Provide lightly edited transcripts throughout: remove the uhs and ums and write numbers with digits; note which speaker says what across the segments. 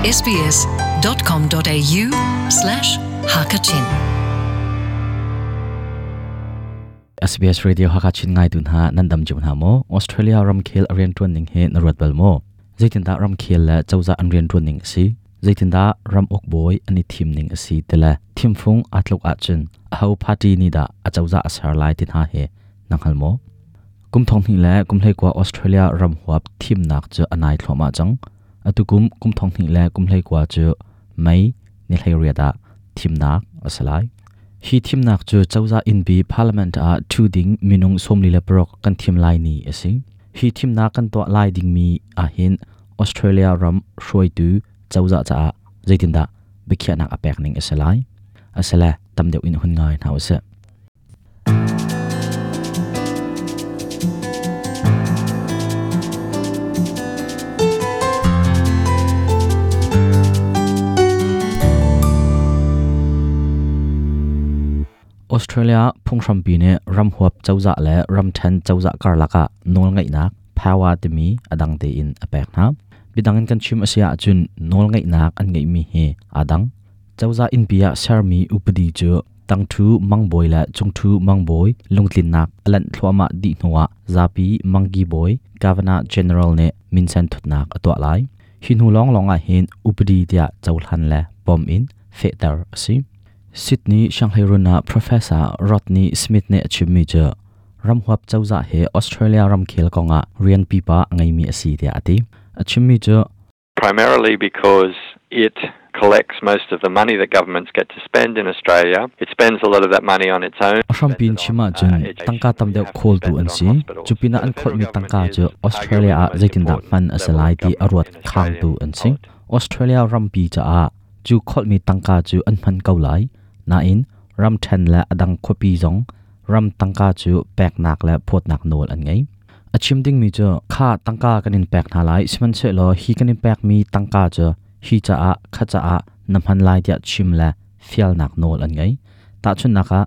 Speaker 1: sbs.com.au/hakachin
Speaker 2: SBS Radio Hakachin ngai tu hna nan dam cio hna maw? Australia ramkhel a riantuan ning hi na ruat bal maw? Zeitindah ramkhel le cozah an riantuan ning a si? Zeitindah ram uk bawi an i thim ning a si ti le thimfung aa tluk ahcun aho party nih dah a cozah a ser lai ti hna hi na hngal maw? Kum thong hnih le kum hleikua Australia ram huap thimnak cu a nai thluahmah cang. Atu kum kum thong hnih le kum hleikua cu May ni 18 ah thimnak a si lai. Hi thimnak cu cozah innpi parliament ah ṭhu ding minung 46 kan thim lai ni a si. Hi thimnak kan tuah lai dingmi ahhin Australia ram hruaitu cozah caah zeitindah biakhiahnak a pek ning a si lai? Asile tam deuh in hun ngai hna usih. Australia phunghrampi nih ramhuap cozah le ramṭhen cozah karlak ah nawlngeihnak power timi a dang tein a pek hna. Bidang in kan chim a si ahcun nawlngeihnak an ngeihmi hi aa dang. Cozah innpi ah sermi upadi cu tangṭhu mangbawi le cungṭhu mangbawi lungtlinnak a lanh thluahmah dih hnuah zapi mangki bawi Governor General nih minsen thutnak a tuah lai. Hi hnu lawnglawng ah hin upadi tiah cohlan le pom in fehter a si. Sydney Sianghleirun ah Professor Rodney Smith nih a chimmi cu ramhuap cozah hi Australia ramkhel kongah rian pipa a ngeimi a si tiah a ti. A chimmi cu
Speaker 3: Primarily because it collects most of the money that governments get to spend in Australia. It spends a lot of that money on its own.
Speaker 2: A hrampi in chim ahcun tangka tam deuh khawltu an si. Cupinah an kholhmi tangka cu Australia ah zeitindah hman a si lai ti a ruat khangtu an si. Australia rampi caah cu kholhmi tangka cu an hman ko lai. Nain ramṭhen le a dang khuapi zong ram tangka cu peknak le phawtnak nawl an ngei. A chim dingmi cu kha tangka kan in pek hna lai sihmanhsehlaw hi kan in pekmi tangka cu hi caah kha caah na hman lai tiah chim le fialnak nawl an ngei. Tahchunhnak ah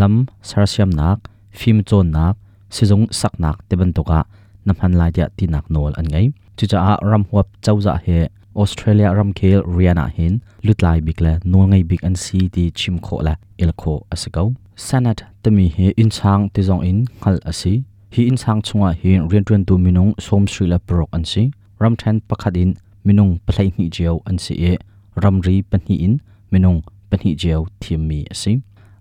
Speaker 2: lam sersiamnak, fimcawnnak, sizung saknak ti bantuk ah na hman lai tiah tinak nawl an ngei. Cucaah ramhuap cozah hi Australia ramkhel rian ah hin lutlai bik le nawlngei bik an si ti chim khawh le el khawh a si ko. Senate timi hi innchang ti zong in hngalh a si. Hi innchang chungah hin rianṭuantu minung 36 an si. Ramṭhen pakhat in minung 12 cio an si i ramri pahnih in minung pahnih cio thimmi a si.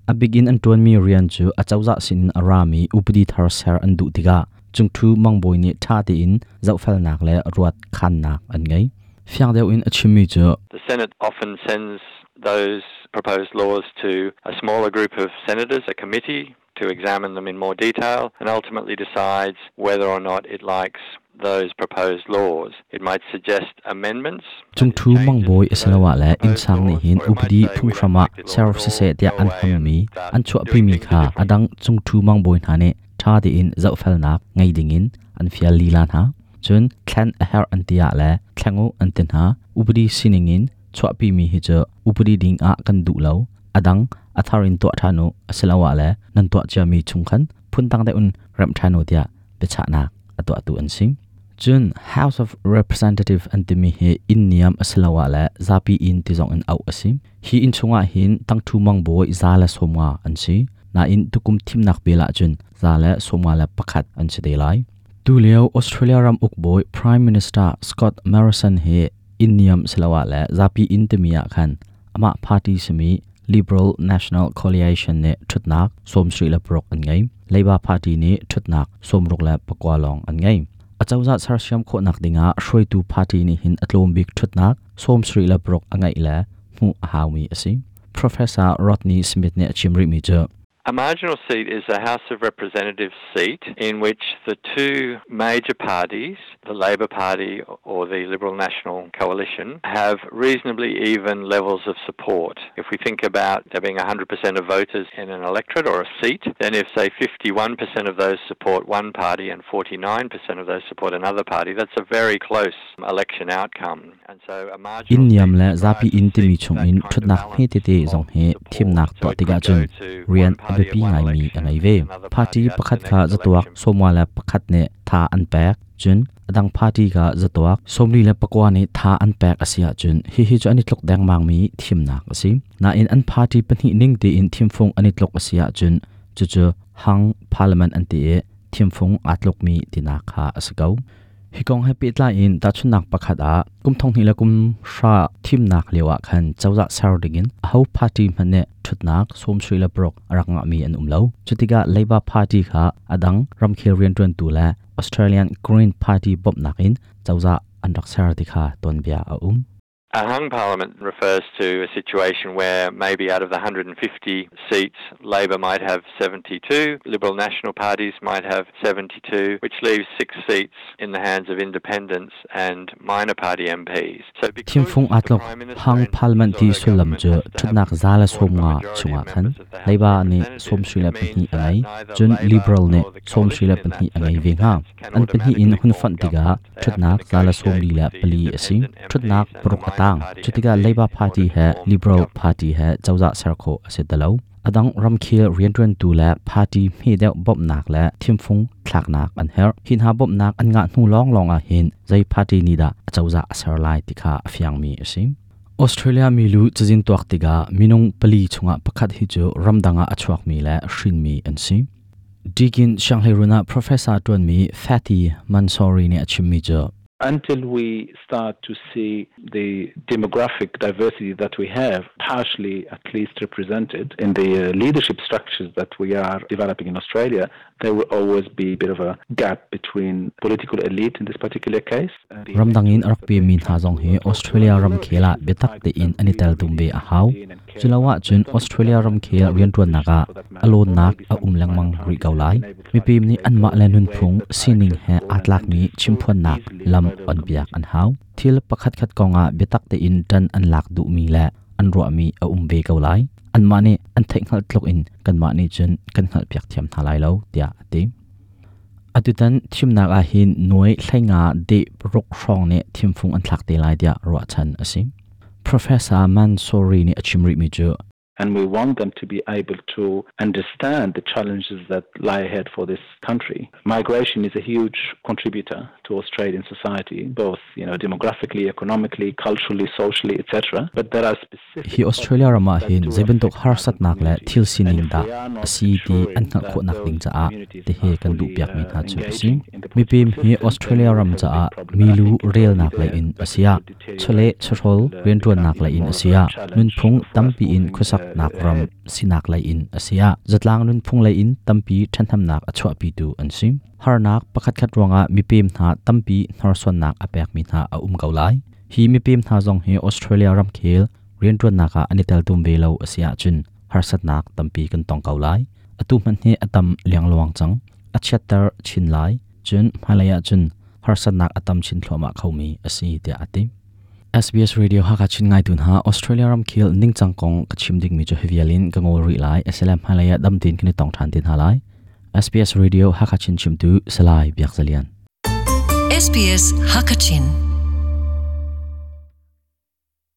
Speaker 2: A bik in an ṭuanmi rian cu acozah sinin a rami upadi thar ser an duh tikah cungṭhu mangbawi nih ṭha tein zohfelnak le ruat khannak an ngei. Fiang deuh in a chimmi cu
Speaker 3: The Senate often sends those proposed laws to a smaller group of senators, a committee, to examine them in more detail and ultimately decides whether or not it likes those proposed laws. It might suggest amendments.
Speaker 2: Cungṭhu mangbawi asiloah le innsang nih hin upadi phunghram ah ser siseh tiah an hmangmi an chuahpimi kha a dang cungṭhu mangbawi hna nih ṭha tein zohfelnak ngei dingin an fial lila hna. Cun thlen a herh an ti ah le thleng u an ti hna. Upadi sining in chuahpimi hi cu upadi ding ah kan duh lo. A dang a thar in tuah ṭhan u asiloah le nan tuah ciami chung khan phundang deuh in remh ṭhan u tiah biachahnak a tuahtu an si. Cun House of Representative an timi hi inn niam asiloah le zapi inn ti zong in auh a si. Hi inn chungah hin tangṭhu mangbawi 150 an si. Nain tukum thimnak bel ahcun 151 an si te lai. Tulio Australia ram ukbawi Prime Minister Scott Morrison hi inn niam siloah le zapi inn timi ah khan amah party simi Liberal National Coalition nih ṭhutnak 76 an ngei. Labour Party nih ṭhutnak 69 lawng an ngei. Acozah sersiam khawhnak dingah hruaitu party nih hin a tlawm bik ṭhutnak 76 a ngeih le hmuh a haumi a si. Professor Rodney Smith nih a chim rihmi cu
Speaker 3: A marginal seat is a House of Representatives seat in which the two major parties, the Labor Party or the Liberal National Coalition, have reasonably even levels of support. If we think about there being 100% of voters in an electorate or a seat, then if, say, 51% of those support one party and 49% of those support another party, that's a very close election outcome.
Speaker 2: Inn niam le zapi inn timi chungin ṭhutnak hmetete zong hi thimnak tuah tikah cun rian a biapi ngaimi a ngei ve. Party pakhat kha zatuak 51 nih tha an pek. Cun adang party ka zatuak 34 nih tha an pek a si ahcun hihi cu an i tluk dengmangmi thimnak a si. Nain an party pahnih ning tein thimfung an i tluk a si ahcun cucu hung parliament an ti i thimfung aa tlukmi tinak kha a si ko. Hi kong he pehtlai in tahchunhnak pakhat ah kum 2010 thimnak lio ah khan cozah ser dingin aho party hmanh nih ṭhutnak 36 a rak ngahmi an um lo. Cutikah Labour Party kha a dang ramkhel rianṭuantu le Australian Green Party bawmhnak in cozah an rak ser ti kha tuanbia a um.
Speaker 3: A hung parliament refers to a situation where maybe out of the 150 seats, Labor might have 72, Liberal National parties might have 72, which leaves six seats in the hands of independents and minor party MPs. So
Speaker 2: Thimfung aa tluk hung parliament ti sullam cu ṭhutnak 150 chungah khan Labour nih 62 a ngei, cun Liberal nih 62 a ngei ve hnga. An pahnih in hun fonh tikah ṭhutnak 144 a si. Ṭhutnak paruk a tang. Cutikah Labour Party he Liberal Party he cozah ser khawh a si ti lo. A dang ramkhel rianṭuantu le party hme deuh bawmhnak le thimfung thlaknak an herh. Hi hna bawmhnak an ngah hnu lawnglawng ah hin zei party nih dah a cozah a ser lai ti kha a fiangmi a si. Australia milu cazin tuak tikah minung pali chungah pakhat hi cu ramdang ah a chuakmi le hrinmi an si. Deakin sianghleiruun ah professor ṭuanmi Fatty Mansouri nih a chimmi cu
Speaker 1: Until we start to see the demographic diversity that we have partially at least represented in the leadership structures that we are developing in Australia, there will always be a bit of a gap between political elite in this particular case.
Speaker 2: Ramdang in a rak pemi hna zong hi Australia ramkhel ah biatak tein an i teltum ve a hau. Culo ahcun Australia ramkhel rianṭuannak ah a lawnnak a um lengmang rih ko lai. Mipim nih anmah le nunphung sining he aa tlakmi chimphuannak lam onpiak an hau. Thil pakhatkhat kongah biatak tein ṭan an lak duhmi le an ruahmi a um ve ko lai. Anmah nih an theihhngalh tluk in kanmah nih cun kan hngalhpiak thiam hna lai lo, tiah a ti. Atutan thimnak ah hin nuai 15 deh ruk hrawng nih thimfung an thlak te lai tiah ruahchan a si. Professor Mansouri nih a chim rihmi cu
Speaker 1: and we want them to be able to understand the challenges that lie ahead for this country. Migration is a huge contributor to Australian society, both you know, demographically, economically, culturally, socially, etc. But there are specific
Speaker 2: Hi Australia ram ah hin zeibantuk harsatnak le thil sining dah a si ti an hngalh khawhnak ding caah tihi kan duhpiakmi hna cu a si. Mipim hi Australia ram caah milu relnak lei in a si ah, chawleh chawhrawl rianṭuannak lei in a si ah, nunphung tampi in khuasaknak ram sinak lei in a si ah, zatlang nunphung lei in tampi ṭhathnemnak a chuahpitu an si. Harnak pakhatkhat ruangah mipem hna tampi hnorsuannak a pekmi hna a um ko lai. Hi mipem hna zong hi Australia ramkhel rianṭuannak ah an i teltum ve lo a si ahcun harsatnak tampi kan tong ko lai. Atu hmanh hi a tam liangluang cang. A chiatter chin lai. Cun hmailei ahcun harsatnak a tam chin thluahmah khomi a si tiah a ti. SBS Radio Hakha Chin ngaitu hna Australia ramkhel ningcang kong ka chim dingmi cu hi vial in ka ngol rih lai. SLM hmailei ah dam tein kan i tong ṭhan te hna lai. SBS Radio Hakha Chin chimtu Salai Biak Zalian.
Speaker 4: SBS Hakachin.